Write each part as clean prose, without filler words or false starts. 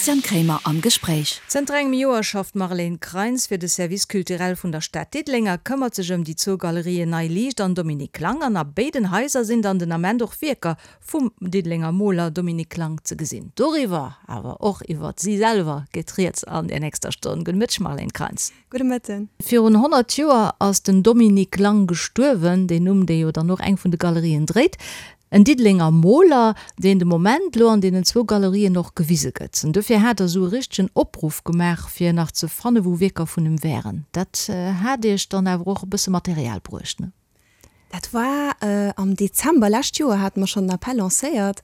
Christian Kremer am Gespréich. Zënter engem Joer schafft d'Marlène Kreins fir de Service culturel vun der Stad Diddeleng a këmmert sech ëm déi zwou Galerien Nei Liicht an Dominique Lang. An a béiden Haiser sinn dann den Ament och Wierker vum Diddelenger Moler Dominique Lang ze gesinn. Doriwwer, awer och iwwert si selwer geet rieds an der nächster Stonn. Gudde Mëtteg Marlène Kreins. Gudde Mëtten. Virun 100 Joer ass den Dominique Lang gestuerwen, deen Numm, dee jo dann och eng vun de Galerien dréit. En Diddelenger Moler, deen de Moment elo an deenen zwou Galerien och gewise gëtt. An dofir hat der esou e richtegen Opruff gemaach, fir nach ze fanne wou Wierker vun em wären. Dat hat iech dann awer och e bësse Material bruecht, ne? Dat war am Dezember lescht Joer hate mer schonn den Appell lancéiert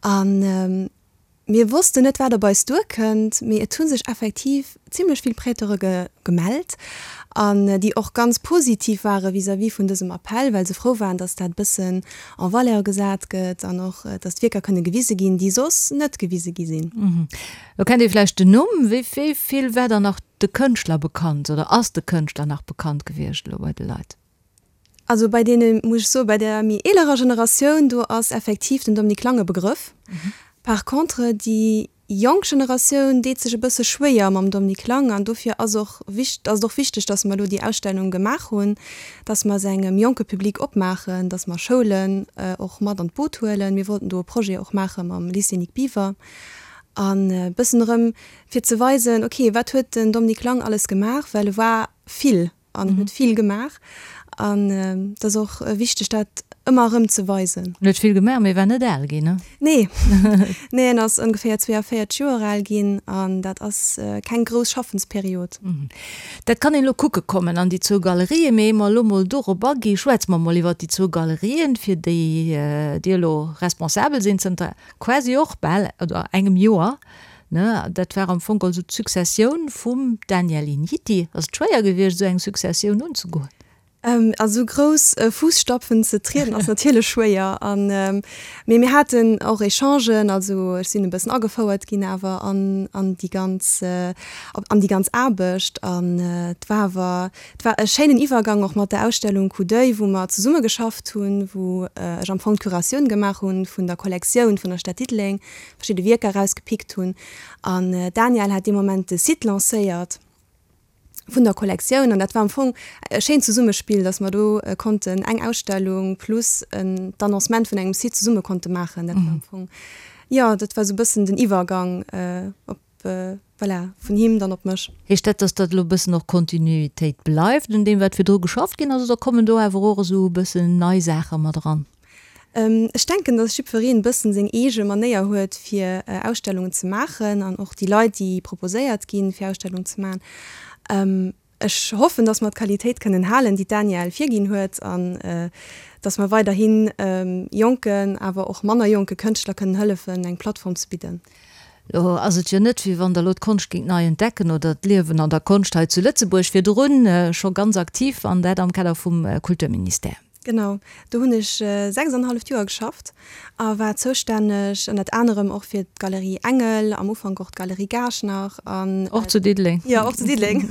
an mir wossten net, wat op eis duerkënnt, mee et hu sech effektiv zimlech vill Prêteure gemellt an déi och ganz positiv ware vis-à-vis vun dësem Appell, well se frou waren, datt dat e bëssen en valeur gesat gëtt an och, datt d'Wierker kënne gewise ginn, déi soss net gewise gi sinn. Lo kennt ee vläicht den Numm. Wéi vill war dann nach de Kënschtler bekannt oder ass de Kënschtler nach bekannt gewiescht elo bei de Leit? Also bei deene, muss ech soen, bei der méi eelerer Generatioun, do ass effektiv den Dominique Lang e Begrëff. Par contre déi jonk Generatioun deet sech e bësse schwéier mam Dominique Lang an dofir ass och ass et och wichteg, datt mer elo déi Ausstellung gemaach hunn, datt mer se engem jonke Public opmaachen, datt mer Schoulen och mat an d'Boot huelen. Mir wollten do e Projet och maache mam Lycée Nic Biver an e bëssen erëm fir ze weisen, ok, wat huet den Dominique Lang alles gemaach, well e war vill. An huet vill gemaach. An et ass och wichteg, dat ëmmer erëm ze weisen. En huet vill gemaach, mee war net al ginn, ne? Nee. Nee, en ass ongeféier 42 Joer al ginn an dat ass keng grouss Schaffensperiod. Dat kann een elo kucke kommen an déi zwou Galerien. Mee ier mer elo mol dorop agi, schwätze mer mol iwwert déi zwou Galerien, fir déi Dir elo responsabel sinn zënter quasi och bal, oder engem Joer. Ne, dat war am Fong also d'Successioun vum Daniel Igniti. Ass et schwéier gewiescht, esou eng Successioun unzegoen? A sou grouss Fuusstapfen ze trieden ass natierlech schwéier. An, mee mir haten och Echangen, also ech sinn e bëssen agefouert ginn awer an, an déi ganz, an déi ganz Aarbecht. An et war awer, et war e schéinen Iwwergang och mat der Ausstellung Coup d'oeil, wou mer zesumme geschafft hunn, wou ech am Fong d'Curatioun gemaach hunn vun der Kollektioun vun der Stad Diddeleng. verschidde Wierker erausgepickt hunn an d'Danièle hat dee Moment de Site lancéiert vun der Kollektioun an dat war am Fong e schéint Zesummespill, datt mer do konnten eng Ausstellung plus d'Annoncement vun engem Site zesumme konnte maachen. Dat war am Fong, jo, dat war esou e bëssen den Iwwergang op, voilà, vun him dann op mech. Heescht dat, datt dat elo e bëssen och Kontinuitéit bleift un deem, wat virdru geschafft ginn ass, oder kommen do awer och esou e bëssen nei Saache mat eran? Ech denken, dass jiddwereen e bëssen seng eege Manéier huet fir Ausstellungen ze maachen an och déi Leit, déi proposéiert ginn fir Ausstellungen ze maachen. Ech hoffen, dass mer d'Qualitéit kënnen halen, déi d'Danièle virginn huet an dass mer weiderhi jonken, awer och manner jonke Kënschtler kënnen hëllefen, eng Plattform ze bidden. Lo ass et jo net, wéi wann Der elo d'Konscht géingt nei entdecken oder d'Liewen an der Konscht hei zu Lëtzebuerg, virdrun scho ganz aktiv an dat am Kader vum Kulturministère. Genau, do hunn ech 6 an e halleft Joer geschafft a war zoustänneg ënnert anerem och fir d'Galerie Engel, am Ufank och d'Galerie Gaasch nach an. Och zu Diddeleng. Jo, och zu Diddeleng.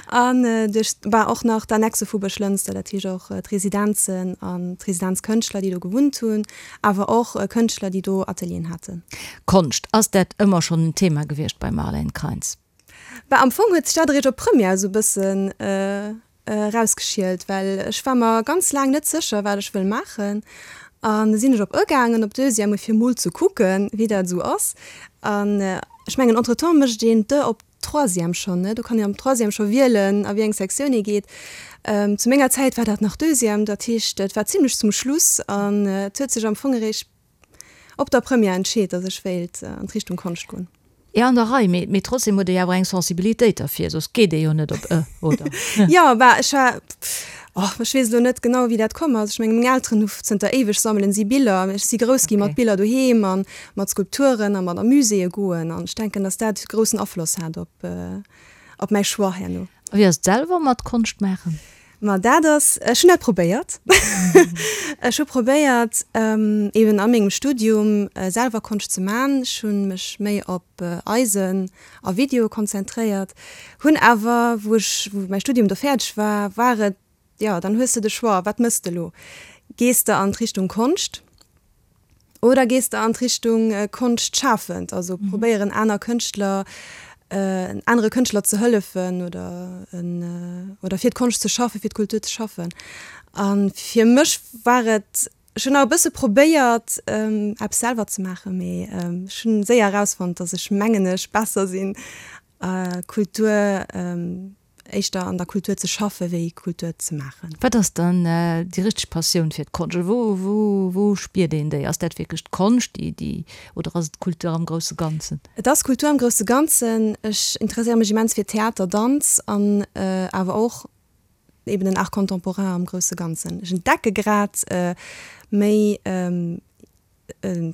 An duerch, bah, och nach d'Annexe vu Buerglënster, dat heescht och d'Residenzen an d'Residenzkënschtler, déi do gewunnt hunn, awer och Kënschtler, déi do Atelieren haten. Konscht, ass dat ëmmer schonn en Thema gewiescht beim Marlène Kreins? Bah, am Fong huet sech dat eréischt op Première esou e bëssen erausgeschielt, well ech war mer ganz laang net sécher, wat ech wëll maachen. An du sinn ech op e gaangen, op Deuxième, fir mol ze kucken, wéi dat esou ass. An ech mengen, entretemps mécht een d'E op Troisième schonn, ne? Do kann een am Troisième scho wielen, a wéi eng Sektioun ee geet. Zu menger Zäit war dat nach Deuxième, dat heescht, et war zimlech zum Schluss an et huet sech am Fong eréischt op der Première entscheet, datt ech wéilt an d'Richtung Konscht goen. Jo, an der Rei, mee trotzdem huet ee jo awer eng Sensibilitéit derfir, soss geet ee jo net op e, oder? Jo, bah, ech war, oh, ech weess elo net genau, wéi dat komm ass. Ech menge meng Elteren hu zënter éiweg sammelen si Biller. Ech si grouss gi mat Biller doheem a mat Skulpturen a mat a Muséeë goen an ech denken, datt dat groussen Afloss hat op, op mäi Choix herno. A wéi ass et selwer mat Konscht maachen? Ma dat ass, ech hunn dat probéiert. Ech hu probéiert, eben a mengem Studium selwer Konscht ze man. Ech hu mech méi op Eisen a Video konzentréiert, hunn awer, wou ech, wou mäi Studium do fäerdeg war, war et, jo, dann hues de de Choix, wat mëss de elo? Gees de an d'Richtung Konscht? Oder gees de an d'Richtung Konschtschafend, also probéieren aner Kënschtler, anere Kënschtler ze hëllefen oder oder fir d'Konscht ze schaffen, fir d'Kultur ze schaffen. A fir mech war et, ech hunn nach e bësse probéiert eppes selwer ze maachen, mee ech hunn séier erausfonnt, datt ech mengen ech besser sinn Kultur, éischter an der Kultur ze schaffe wéi Kultur ze maachen. Wat ass dann déi richteg Passioun fir d'Konscht? Oder wou, wou, wou spiert een déi? Ass dat wierklech d'Konscht, déi, déi, oder ass et d'Kultur am grousse Ganzen? Et ass Kultur am grousse Ganzen. Ech interesséiere mech immens fir Theater, Danz an awer och eben den Art contemporain am grousse Ganzen. Ech entdecke grad méi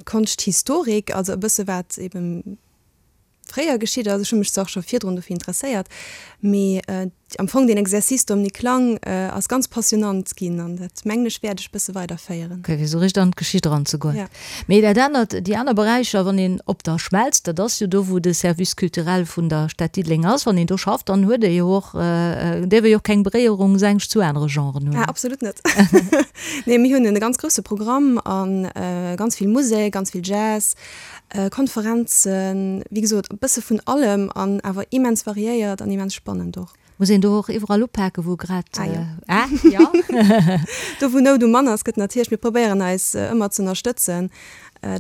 Konschthistorik, also e bësse wat eben fréier geschitt ass. Ech hu mech zwar och scho virdrun dofir interesséiert, mee am Fong deen Exercice Dominique Lang ass ganz passionnant ginn an dat mengen ech wäert ech bësse weiderféieren. Ok, fir esou richteg an d'Geschicht eranzegoen. Ja. Mee dat anert, déi aner Beräicher, wann een op der Schmelz, dat ass jo do wou de Service culturel vun der Stad Diddeleng ass, wann een do schafft, dann huet ee jo och, däerf ee jo och keng Beréierungsängscht zu anere Genren hunn. Ah, absolut net. Nee, mir hunn e ganz grousse Programm a ganz vill Musek, ganz vill Jazz, Konferenzen, wéi gesot e bësse vun allem an awer immens variéiert an immens spannend och. Muss een do och iwwerall upaken, wou grad. Ah jo. Ah jo. Do wou Nout um Mann ass, gëtt natierlech, mir probéieren eis ëmmer ze ënnerstëtzen,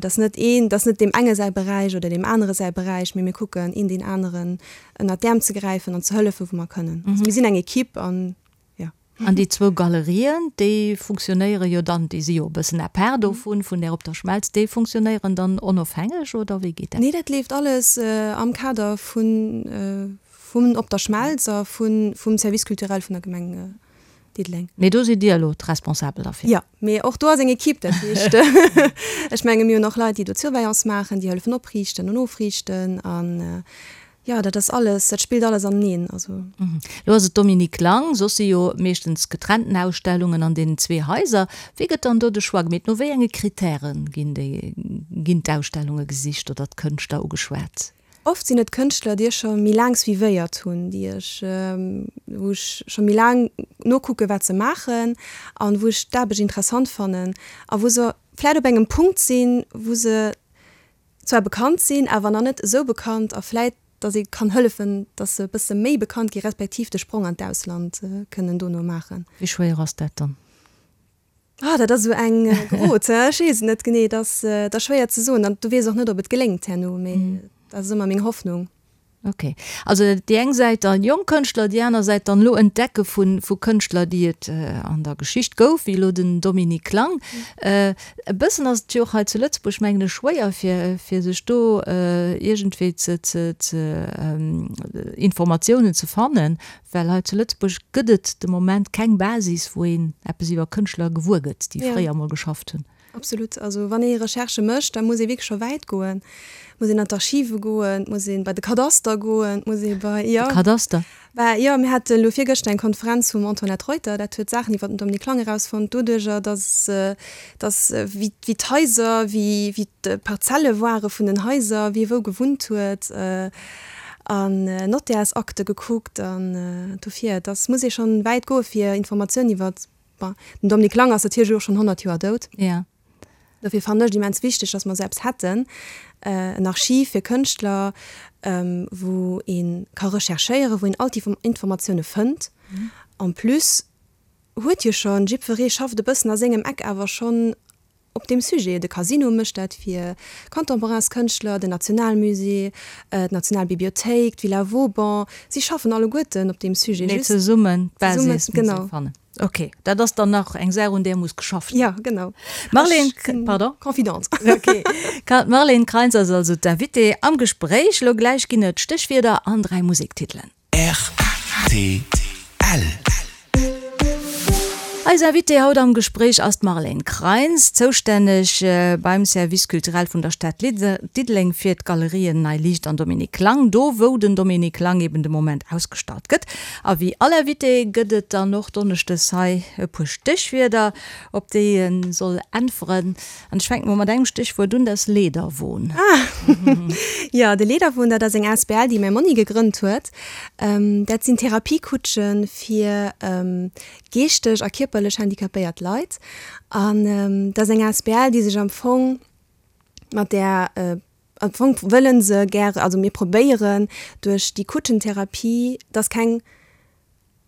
dass net een, dass net deem enge säi Beräich oder deem anere säi Beräich, mee mir kucken een deen aneren ënnert d'Äerm ze gräifen an ze hëllefen, wou mer kënnen. Also mir sinn eng Equipe an. Jo. An déi zwou Galerien, déi funktionéiere jo dann, déi si jo e bëssen à part dovun, vun där op der Schmelz, déi funktionéieren dann onofhängeg oder wéi geet dat? Nee, dat leeft alles am Kader vun, vun Op der Schmelz a vun, vum Service culturel vun der Gemeng Diddeleng. Mee do sidd Dir elo d'Responsabel derfir? Jo, mee och do ass eng Equipe, dat heescht, ech menge mir hunn och Leit, déi do d'Surveillance maachen, déi hëllefen opriichten an ofriichten an Jo, dat ass alles, dat spillt alles aneneen, also. Lo ass et Dominique Lang, soss si jo meeschtens getrennten Ausstellungen an deenen zwee Haiser. Wéi gëtt dann do de Choix gemeet? No wéi enge Kritäre ginn déi, ginn d'Ausstellunge gesicht oder d'Kënschtler ugeschwat? Oft sinn et Kënschtler, déi ech scho méi laang suivéiert hunn, déi ech, wou ech scho méi laang nokucke wat se maachen an wou ech d'Aarbecht interessant fannen a wou se vläit op engem Punkt sinn, wou se zwar bekannt sinn, awer nach net esou bekannt a vläit, datt ee kann hëllefen, datt se e bësse méi bekannt gi respektiv de Sprong an d'Ausland kënnen dono maachen. Wéi schwéier ass dat dann? Ah, dat ass esou eng Grot, ech weess et net genee. Dat ass, dat ass schwéier ze soen an du weess och net, ob et geléngt herno, mee dat ass ëmmer meng Hoffnung. Ok, also déi eng Säit dann jonk Kënschtler, déi aner Säit dann elo Entdecke vu vu Kënschtler, déi et an der Geschicht gouf, wéi elo den Dominique Lang. E bëssen ass et jo och hei zu Lëtzebuerg, mengen ech, schwéier fir fir sech do iergendwéi ze ze ze Informatiounen ze fannen, well hei zu Lëtzebuerg gëtt et de Moment keng Basis, wou een eppes iwwer Kënschtler gewuer gëtt, déi fréier emol geschafft hunn. Absolut. Also wann ee Recherchë mécht, da muss ee wierklech scho wäit goen. Et muss een an d'Archive goen, et muss ee bei de Kadaster goen, et muss ee bei, jo. De Kadaster? Bah, jo, mir hate elo virgëschter eng Konferenz vum Antoinette Reuter, dat huet Saachen iwwer den Dominique Lang erausfonnt, doduerjer, datt, datt wéi, wéi d'Haiser, wéi, wéi d'Parzelle ware vun den Haiser, wie wou gewunnt huet, an Nottärsakte gekuckt an dofir, dass muss ee schonn wäit goe fir Informatiounen iwwer Bon, den Dominique Lang ass natierlech elo och schonn 100 Joer dout. Ja. Dofir fannen ech et immens wichteg, dass mer esou eppes hätten, en Archiv fir Kënschtler, wou ee ka recherchéieren, wou een all d'Informatioune fënnt. En plus huet jo schonn, jiddweree schafft e bëssen a sengem Eck awer schonn Op deem Sujet, de Casino mécht dat fir Contemporainskënschtler, den Nationalmusée, d'Nationalbibliothéik, d'Villa Vauban, si schaffen alleguerten op deem Sujet. Mee zesummen d'Basis muss ee fannen. Ok, dat ass dann nach eng Saach, un där muss geschafft ginn. Jo, genau. Marlène, pardon? Confidente. Ok. D'Marlène Kreins ass also d'Invitée am Gespréich. Elo gläich ginn et Stéchwierder an 3 Musektitelen. Rtl. Eis Invitée haut am Gespréich ass d'Marlène Kreins, zoustänneg beim Service culturel vun der Stad Diddeleng fir d'Galerien Nei Liicht an Dominique Lang, do wou den Dominique Lang eben de Moment ausgestallt gëtt. A wéi all Invité gëtt et dann och donneschdes hei e puer Stéchwierder, op déi e soll äntweren. An ech fänken mol mat engem Stéchwuert un, dat ass Lederwon. Ah, jo, de Lederwon, dat ass eng asbl, déi mäi Monni gegrënnt huet. Dat sinn Therapiekutsche fir geeschteg a kierperlech handicapéiert Leit. An dat ass eng asbl, déi sech am Fong. Mat där, am Fong wëlle se gäre, also mir probéieren duerch déi Kutschentherapie, dass keng,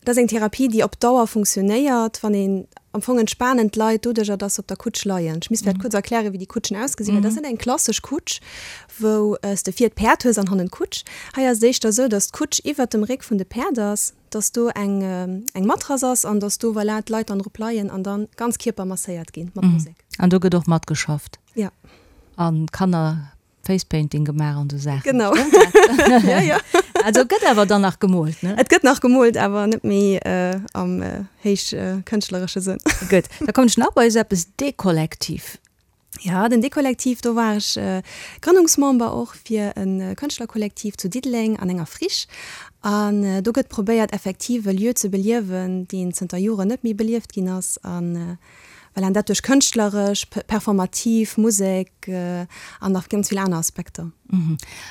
dat ass eng Therapie, déi op Dauer funktionéiert, wann een, am Fong entspanen d'Leit doduercher, dass se op der Kutsch leien. Ech misst vläicht kuerz erklären, wéi déi Kutschen ausgesinn, well dat ass net eng klassesch Kutsch, wou s de vir d'Päerd hues an hannen d'Kutsch. Hei ass et éischter esou, dass d'Kutsch iwwert dem Réck vun de Päerd ass, dass do eng eng Matrass ass an dass do, voilà, d'Leit dann drop leien an dann ganz Kierper masséiert ginn mat Musek. An do gëtt och matgeschafft? Ja. An Kanner Facepainting gemaach an esou Saachen? Genau. Stëmmt dat? Ja, ja. Also et gëtt awer dann nach gemoolt, ne? Et gëtt nach gemoolt, awer net méi am héich kënschtleresche Sënn. Gutt, da kommen ech nach bei esou eppes, Dekollektiv. Ja, den Dekollektiv, do war ech Grënnungsmember och fir e Kënschtlerkollektiv zu Diddeleng an enger Friche. An do gëtt probéiert effektiv e Lieu ze beliewen, deen zënter Joren net méi belieft ginn ass. An voilà, an dat duerch kënschtleresch, performativ Musek an nach ganz vill aner Aspekter.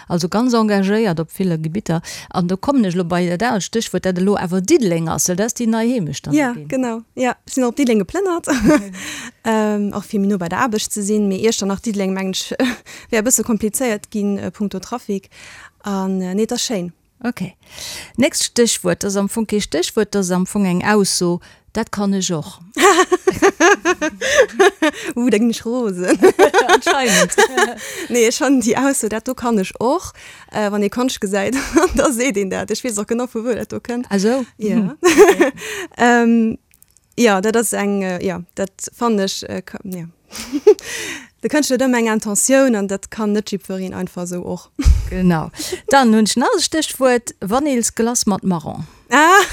Also ganz engagéiert op ville Gebitter. An do kommen ech elo bei dat anert Stéchwuert, dat elo awer Diddeleng ass, well dat ass déi nei Heemecht dann do ginn. Ja, genau. Ja, ech sinn och op Diddeleng geplënnert, och fir méi no bei der Aarbecht ze sinn. Mee Iechternach, Diddeleng, mengen ech, wär e bësse komplizéiert ginn punkto Trafic. An nee, et ass schéin. Ok. Nächst Stéchwuert, dat ass am Fong kee Stéchwuert, dat ass am Fong eng Ausso, Dat kann ech och. Uh, da ginn ech rosen. Anscheinend. Nee, ech fannen déi Ausso, dat do kann ech och, wann ee Konscht gesäit, da seet een dat. Ech weess och genau, vu wou dat do kënnt. Ah sou. Ja. Jo, dat ass eng, jo, dat fannen ech, jo. De Kënschtler huet ëmmer eng Intentioun an dat kann net jiddwereen einfach esou och. Genau. Dann hunn ech nach e Stéchwuert, Vanillsglace mat Marron. Ah,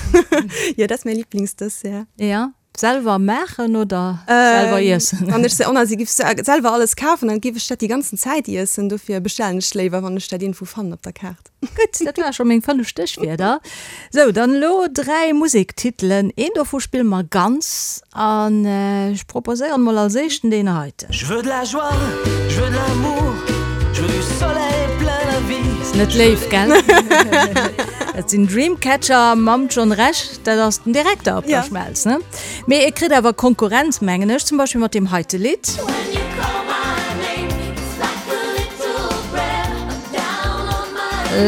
jo, dat ass mäi Liblingsdessert. Ja, selwer maachen oder selwer iessen? Wann ech se, oh, si giff selwer alles kafen, dann giff ech dat déi ganzen Zäit iessen. Dofir bestellen ech léiwer, wann ech dat iergendwou fannen op der Kaart. Gutt, dat ware scho meng 5 Stéchwierder. Sou, dann elo 3 Musektitelen. Een dovu spille mer ganz an ech proposéieren mol als éischten deen heiten. Je veux de la joie, je veux de l'amour, je veux du soleil plein la vie. Ass net léif, gell? Dat sinn Dreamcatcher mam John Rech, dat ass den Direkter op der Schmelz, ne? Mee e kritt awer Konkurrenz, mengen ech, zum Beispill mat deem heite Lidd.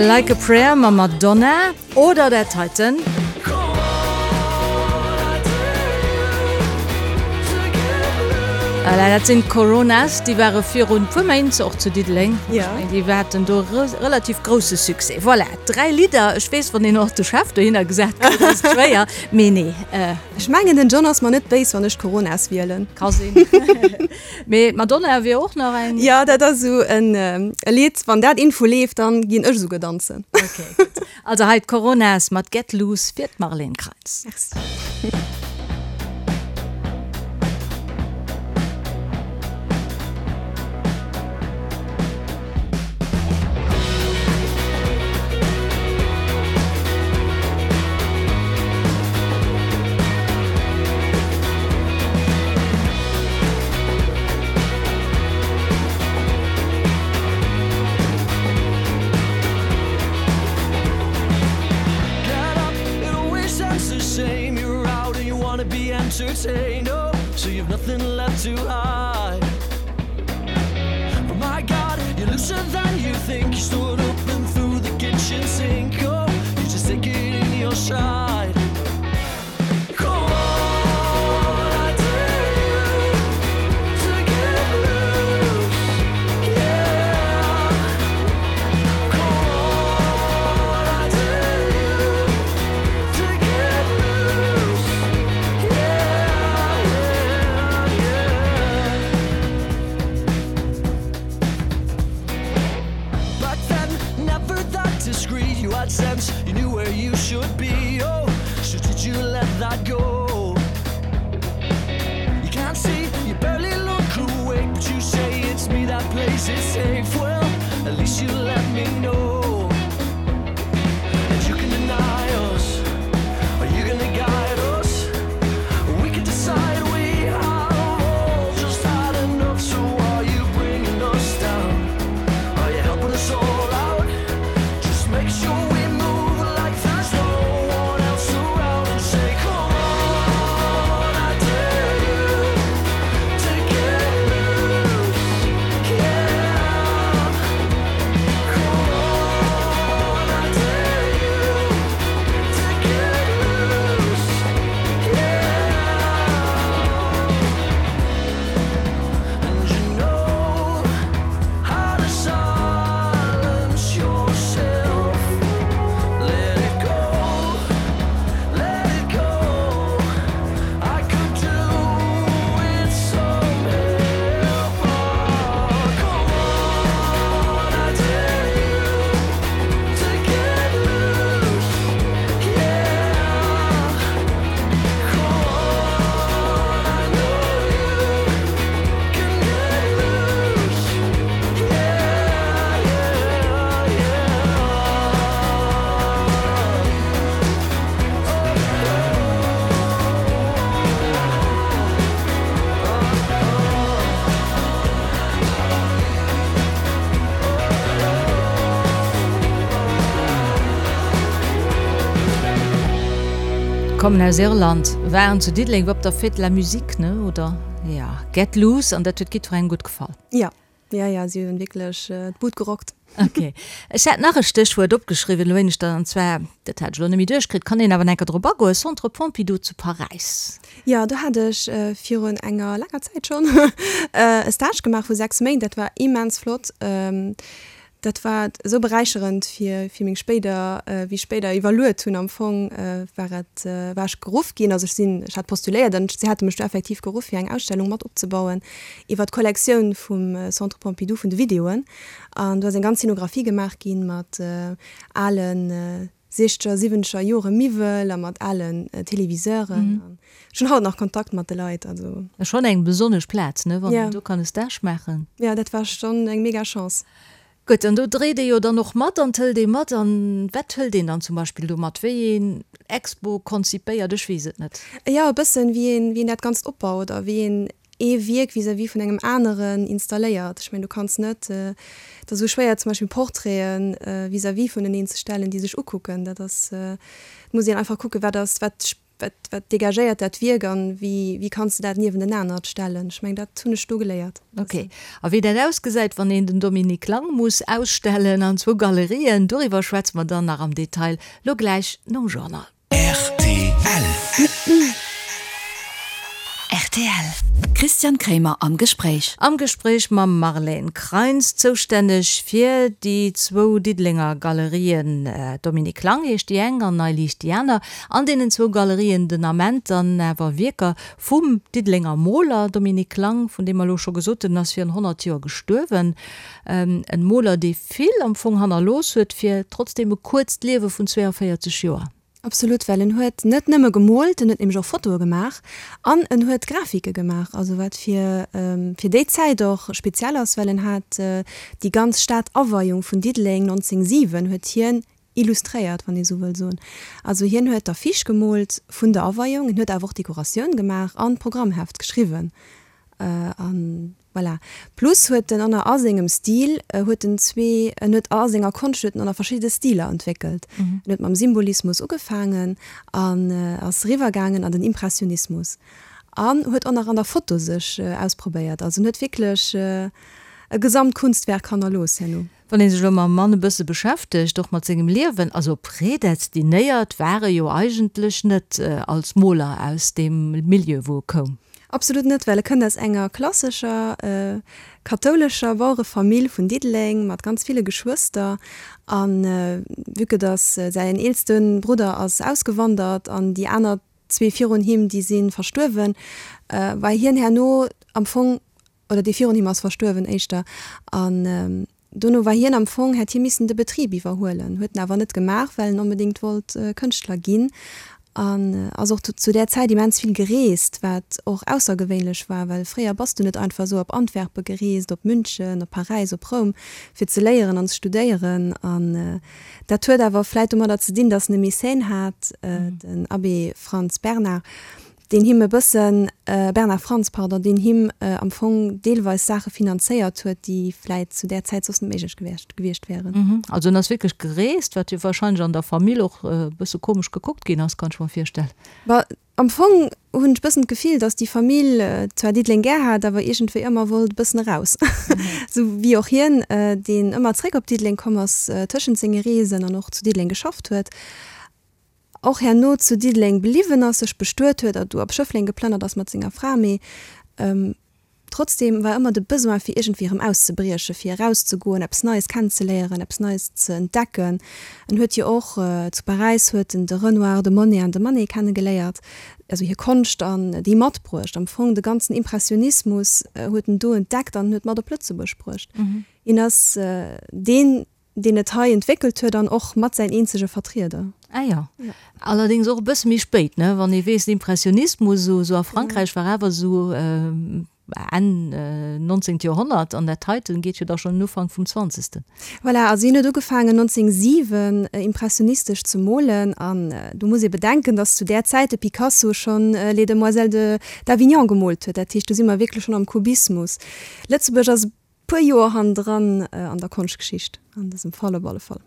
Like a Prayer mam Madonna oder dat heiten. Voilà, dat sinn d'Coronas, déi ware virun puer Méint och zu Diddeleng. Ja. Déi haten do relativ grousse Succès. Voilà, 3 Lidder. Ech weess, wann een och de Chef dohinner gesat kritt, ass et schwéier. Mee nee. Ech mengen den John ass mer net béis wann ech d'Coronas wielen. Ka sinn. Mee d'Madonna wier och nach eng. Jo, dat ass esou en Lidd, wann dat info leeft, dann ginn ech esouguer danzen. Ok, gutt. Also hei d'Coronas mat Get Loose fir d'Marlène Kreitz. Merci. Entertained, oh, so you've nothing left to hide. But my God, you're looser than you think. You stood up and threw the kitchen sink. Oh, you just take it in your stride. Come on, I dare you to get loose. Yeah. Come on, I dare you to get loose. Yeah, yeah, yeah. Back then, never that discreet. You had sense, you knew where you should be. Oh, so did you let that go? You can't see, you barely look awake, but you say it's me that plays it safe. Well, at least you let me know. And you can deny us. Are you gonna guide us? We can decide we have all just had enough. So are you bringing us down? Are you helping us all out? Just make sure we move like there's no one else around and say, Come on, I dare you to get loose. Yeah. Kommen aus Irland, waren zu Diddeleng op der Fête de la Musique, ne, oder? Ja, Get Loose, an dat huet jiddwerengem gutt gefall. Ja, ja, ja, si hunn wierklech d'Bud gerockt. Ok. Ech hat nach e Stéchwuert opgeschriwwen, elo éineschter, an zwar, dat hat ech elo net méi duerchkritt, kann een awer enker drop agoen, Centre Pompidou zu Paräis. Jo, do hat ech virun enger laanger Zäit schonn e Stage gemaach vu 6 Méint. Dat war immens flott. Dat war esou beräicherend fir fir meng spéider, wéi ech spéider iwwerluet hunn am Fong, war et, war ech geruff ginn, also ech sinn, ech hat postuléiert an si hate mech du effektiv geruff fir eng Ausstellung mat opzebauen iwwer d'Kollektioun vum Centre Pompidou vun de Videoen. An do ass eng ganz Scenographie gemaach ginn mat alen siechzeger, siwwenzeger Jore Miwwel a mat alen Téléviseuren. An ech hunn haut nach Kontakt mat de Leit. Also. Ass schonn eng besonnesch Plaz, ne, wann een do kann e Stage maachen. Jo, dat war schonn eng mega Chance. Gutt, an do dréit ee jo dann och mat an 't hëlt ee mat. An wat hëlt een dann zum Beispill do mat? Wéi een Expo konzipéiert? Ech weess et net. Jo, e bëssen, wéi een, wéi een dat Ganzt opbaut a wéi een ee Wierk vis-à-vis vun engem aneren installéiert. Ech mengen, du kanns net, et ass esou schwéier zum Beispill Portraiten vis-à-vis vuneneen ze stellen, déi sech ukucken. Dat ass, et muss een einfach kucken, wat ass, wat, wat, wat dégagéiert dat Wierk an wéi, wéi kanns de dat niewentenanert stellen. Ech mengen, dat hunn ech do geléiert. Ok. A wéi dat ausgesäit, wann een den Dominique Lang muss ausstellen an zwou Galerien, doriwwer schwätze mer dann nach am Detail lo gläich nom Journal. Rtl. Rtl. Christian Kremer am Gespréich. Am Gespréich mam Marlène Kreins, zoustänneg fir déi zwou Diddelenger Galerien, Dominique Lang heescht déi eng an Nei Liicht déi aner. An deenen zwou Galerien den Ament dann awer Wierker vum Diddelenger Moler Dominique Lang, vun deem mer elo scho gesot hunn, en ass virun 100 Joer gestuerwen. En Moler, dee vill am Fong hannerlooss huet, fir trotzdeem e kuerzt Liewe vun 42 Joer. Absolut, well en huet net nëmme gemoolt, en huet nämlech och Fotoe gemaach an en huet Grafike gemaach, also wat fir fir déi Zäit och speziell ass, well en hat déi ganz Stadaweiung vun Diddeleng 1907 huet hien illustréiert, wann ee sou wëll soen. Also hien huet d'Affiche gemoolt vun der Aweiung, en huet awer och d'Dekoratioun gemaach an d'Programmheft geschriwwen an Voilà. Plus huet en ënner a sengem Stil huet en zwee, en huet a senger Konscht huet en ënner verschidde Stiler entwéckelt. En huet mam Symbolismus ugefaangen an ass eriwwer gaangen an den Impressionismus an huet och nach an der Foto sech ausprobéiert. Also en huet wierklech e Gesamtkunstwerk hannerlooss herno. Wann ee sech elo mam Mann e bësse beschäftegt, och mat sengem Liewen, also prädestiniert war e jo eigentlech net als Moler aus deem Milieu, wou e koum. Absolut net, well e kënnt aus enger klassescher kathoulescher Bauerefamill vun Diddeleng mat ganz ville Geschwëster. A vue que dass säin eelste Brudder ass ausgewandert an déi aner zwee virun him, déi si verstuerwen, war hien herno am Fong oder dee virun him ass verstuerwen éischter, an dono war hien am Fong, hätt hie missen de Betrib iwwerhuelen, huet en awer net gemaach, well en onbedéngt wollt Kënschtler ginn an ass och zu där Zäit immens vill gereest, wat och aussergewéinlech war, well fréier bass du net einfach esou op Antwerpe gereest, op München, op Paräis, op Roum, fir ze léieren an ze studéieren. An dat huet awer vläit domadder ze dinn, datt en e Mécène hat, den Abbé Franz Bernard, deen him e bëssen, Bernard Franz, pardon, deen him am Fong deelweis Saache finanzéiert huet, déi vläit zu där Zäit soss net méiglech gewiescht gewiescht wären. Also en ass wierklech gereest, wat jo wahrscheinlech an der Famill och e bësse komesch gekuckt ginn ass, kann ech mer virstellen. Bah, am Fong hunn ech bëssen d'Gefill, datt déi Famill zwar Diddeleng gär hat, awer iergendwéi ëmmer wollt e bëssen eraus. Esou wéi och hien, deen ëmmer zréck op Diddeleng komm ass tëschent senge Reesen an och zu Diddeleng geschafft huet. och herno zu Diddeleng bliwwen ass, sech bestuet huet a du op Schëffleng geplënnert ass mat senger Fra, mee trotzdeem war ëmmer de Besoin fir iergendwéi erëm auszebriechen, fir erauszegoen, eppes Neies kennenzeléieren, eppes Neies ze entdecken. En huet jo och zu Paräis huet en de Renoir, de Monet an de Manet kennegeléiert, also hir Konscht an déi matbruecht. Am Fong de ganzen Impressionismus huet en do entdeckt an huet mat op Lëtzebuerg bruecht. Hien ass deen deen et hei entwéckelt huet an och mat säin eenzege Vertrieder. Ah jo. Allerdéngs och e bësse méi spéit, ne? Wann ee weess, den Impressionismus esou esou a Frankräich war awer esou Enn nonzéngt Joerhonnert an dat heiten geet jo da schonn en Ufank vum zwanzegsten. Voilà, also hien huet ugefaangen 1907 impressionistesch ze molen an do muss ee bedenken, datt zu där Zäit de Picasso schonn Les Demoiselles de d'Avignon gemoolt huet. Dat heescht, do si mer wierklech schonn am Kubismus. Lëtzebuerg ass e. puer Joer hannendran an der Konschtgeschicht, an dësem Fall op alle Fall.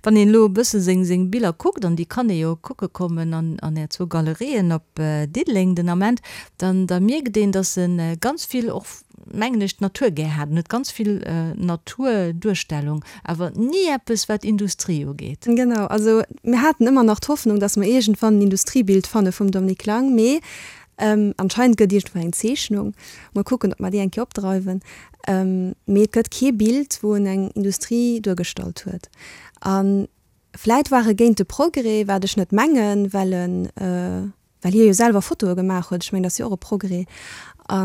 Wann een elo e bësse seng seng Biller kuckt, an déi kann ee jo kucke kommen an an Är zwou Galerien op Diddeleng den Ament, dann da mierkt een, datt e ganz vill och, mengen ech, d'Natur gär hat. En huet ganz vill Naturduerstellung, awer ni eppes wat Industrie ugeet. Genau, also mir haten ëmmer nach d'Hoffnung, datt mer iergendwann en Industriebild fanne vum Dominique Lang, mee Anscheinend gëtt iergendwou eng Zeechnung. Mol kucken, ob mer déi eng Kéier opdreiwen. Mee et gëtt kee Bild, wou en eng Industrie duergestallt huet. A vläit war e géint de Progrès, wat ech net mengen, well en, well hie jo selwer Fotoe gemaach huet. Ech mengen, dat ass jo och e Progrès. A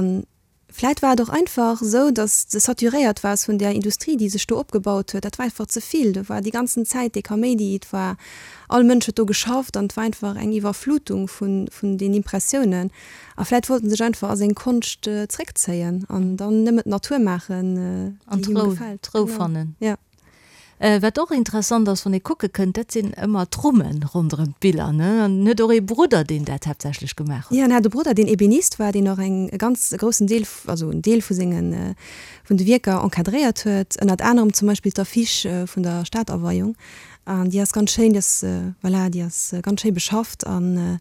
Vläit war et och einfach esou, dass de saturéiert waars vun där Industrie, déi sech do opgebaut huet. Dat war einfach ze vill. Do war déi ganzen Zäit dee Kaméidi, et war, all Mënsch huet do geschafft an et war einfach eng Iwwerflutung vun, vun den Impressiounen. A vläit wollt en sech einfach a seng Konscht zréckzéien an dann nëmmen d'Natur maachen, déi him gefält. An d'Rou fannen. Ja. Wat och interessant ass, wann ee kucke kënnt, dat sinn ëmmer d'Rummen ronderëm d'Biller, ne? An en huet och ee Brudder, deen dat haaptsächlech gemaach huet. Jo, en hat e Brudder, deen Ebenist war, deen och eng, e ganz groussen Deel, also en Deel vu sengen, vun de Wierker encadréiert huet, ënnert anerem zum Beispill d'Affiche vun der Stadaweiung. An déi ass ganz schéin, déi ass, voilà, déi ass ganz schéi beschafft an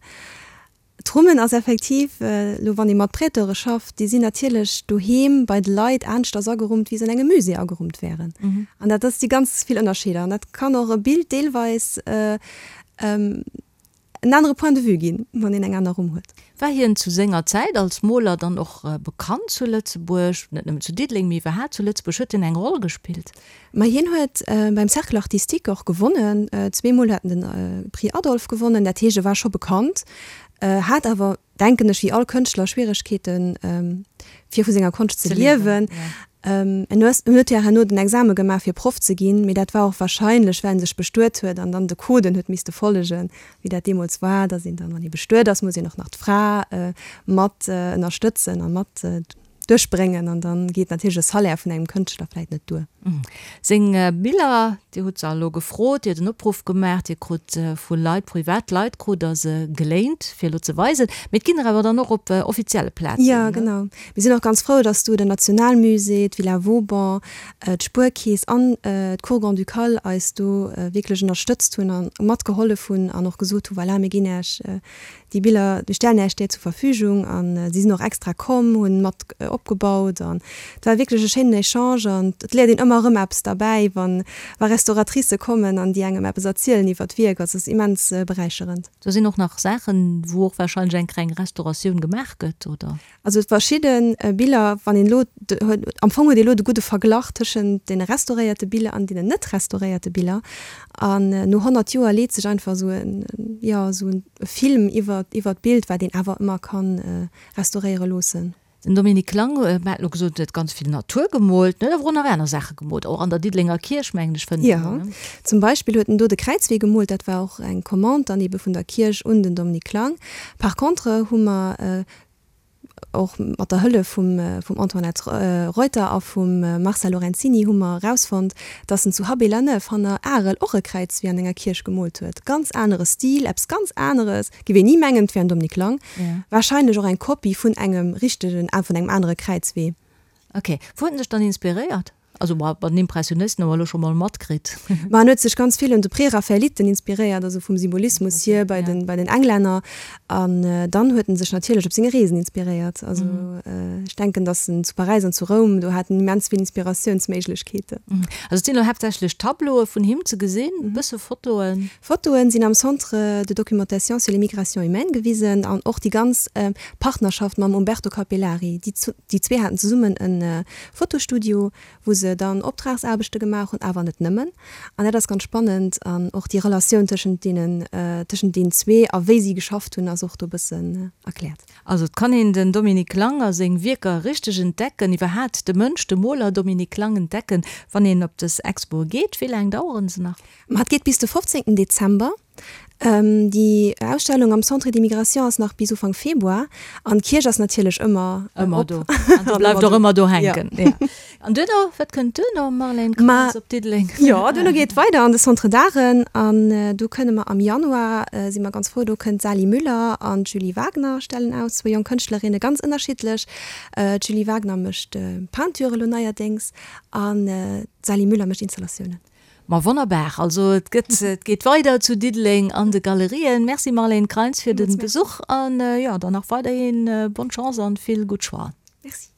D'Rummen ass effektiv, elo wann ee mat Prêteure schafft, déi sinn natierlech doheem bei de Leit aneschters agerummt, wéi se an engem Musée agerummt wären. An dat ass, si ganz vill Ënnerscheeder. An dat kann och e Bild deelweis en anere Point de vue ginn, wann een eng aner Rumm huet. War hien zu senger Zäit als Moler dann och bekannt zu Lëtzebuerg, net nëmmen zu Diddeleng, mee iwwerhaapt zu Lëtzebuerg? Huet hien eng Roll gespillt? Ma hien huet beim Cercle Artistique och gewonnen, zweemol huet en de Prix Adolphe gewonnen, dat heescht e war scho bekannt, hat awer, denken ech, wéi all Kënschtler Schwieregkeeten, fir vu senger Konscht ze liewen. En huet jo herno den Exame gemaach fir Proff ze ginn, mee dat war och wahrscheinlech, well en sech bestuet huet an dann de Coden huet misste follegen, wéi dat deemools war, datt een dann, wann ee bestuet ass, muss een och nach d'Fra mat ënnerstëtzen a mat duerchbréngen an dann geet natierlech e Salaire vun engem Kënschtler vläit net duer. Seng Biller, Dir hutt se elo gefrot, Dir hutt en Opruff gemaach, Dir krut vu Leit, privat Leit krut Der se geléint, fir elo ze weisen, mee et ginn der awer dann och op offizielle Plazen, Jo, genau. Mir sinn och ganz frou, dass do den Nationalmusée, d'Villa Vauban, d'Spuerkeess an d'Cour Grand-Ducale eis do wierklech ënnerstëtzt hunn a matgehollef hunn an och gesot hu, voilà, mir ginn Iech Déi Biller, déi stellen Äech där zur Verfügung an si sinn och extra komm, hunn mat opgebaut an et war wierklech e schéinen Echange an et léiert een ëmmer erëm eppes derbäi, wann wa Restauratricë kommen an déi engem eppes erzielen iwwer d'Wierk. Also et ass immens beräicherend. Do sinn och nach Saachen, wou och wahrscheinlech eng kleng Restauratioun gemaach gëtt, oder? Also verschidde Biller, wann een elo, am Fong huet ee elo de gudde Verglach tëschent deene restauréierte Biller an deenen net restauréierte Biller. An no 100 Joer leet sech einfach esou en, jo, esou e Film iwwer, iwwer d'Bild, wat een awer ëmmer ka restauréiere loossen. Den Dominique Lang, mer hat elo gesot, en huet ganz vill Natur gemoolt, en huet awer och nach aner Saache gemoolt, och an der Diddelenger Kierch, mengen ech, fënnt een en, ne? Jo, zum Beispill huet en do de Kräizwee gemoolt, dat war och eng Commande dann ebe vun der Kierch un den Dominique Lang. Par contre hu mer och mat der Hëllef vum vum Antoinette Reuter a vum Marcel Lorenzini hu mer erausfonnt, dass en zu Habay-la-Neuve hanner Arel och e Kräizwee an enger Kierch gemoolt huet. Ganz anere Stil, eppes ganz aneres, géif een ni mengen, et wär en Dominique Lang. Warscheinlech och eng Kopie vun engem richtegen, vun engem anere Kräizwee. Ok. Wou huet en sech dann inspiréiert? Also ma bei den Impressionisten hu mer elo scho mol matkritt. Ma en huet sech ganz vill un de Präraphaeliten inspiréiert, also vum Symbolismus hier bei den, bei den Englänner. An dann huet en sech natierlech op senge Reesen inspiréiert. Also ech denken, datt en zu Paräis an zu Roum, do hat en immens vill Inspiratiounsméiglechkeeten. Also et sinn elo haaptsächlech Tableaue vun him ze gesinn, e bësse Fotoen. Fotoen sinn am Centre de documentation sur les migrations humaines gewisen an och déi ganz Partnerschaft mam Umberto Capellari. Déi zwee haten zesummen e Fotostudio, wou se dann Optragsaarbechte gemaach hunn, awer net nëmmen. An dat ass ganz spannend. An och déi Relatioun tëschent deenen, tëschent deenen zwee a wéi si geschafft hunn, ass och do e bëssen erkläert. Also et kann een den Dominique Lang a seng Wierker richteg entdecken, iwwerhaat de Mënsch, de Moler Dominique Lang entdecken, wann een op dës Expoe geet. Wéi laang daueren se nach? Ma et geet bis de 15 Dezember. Déi Ausstellung am Centre d'immigration ass nach bis Ufank Februar an d'Kierch ass natierlech ëmmer Ëmmer do. An déi bleift och ëmmer do hänken. Ja. An duerno, wat kënnt duerno, Marlène Krantz, op Diddeleng? Jo, duerno geet et weider an de Centre d'Arten an do kënne mer am Januar, si mer ganz frou, do kënnt d'Sally Müller an d'Julie Wagner stellen aus, zwou jonk Kënschtlerinne, ganz ënnerschiddlech. D'Julie Wagner mécht Peinture elo neierdéngs an d'Sally Müller mécht Installatiounen. Ma wonnerbar, also et gëtt, et geet weider zu Diddeleng an de Galerien. Merci Marlène Kreins fir de Besuch an jo, dann nach weiderhin bonne Chance an vill gutt Choixen. Merci.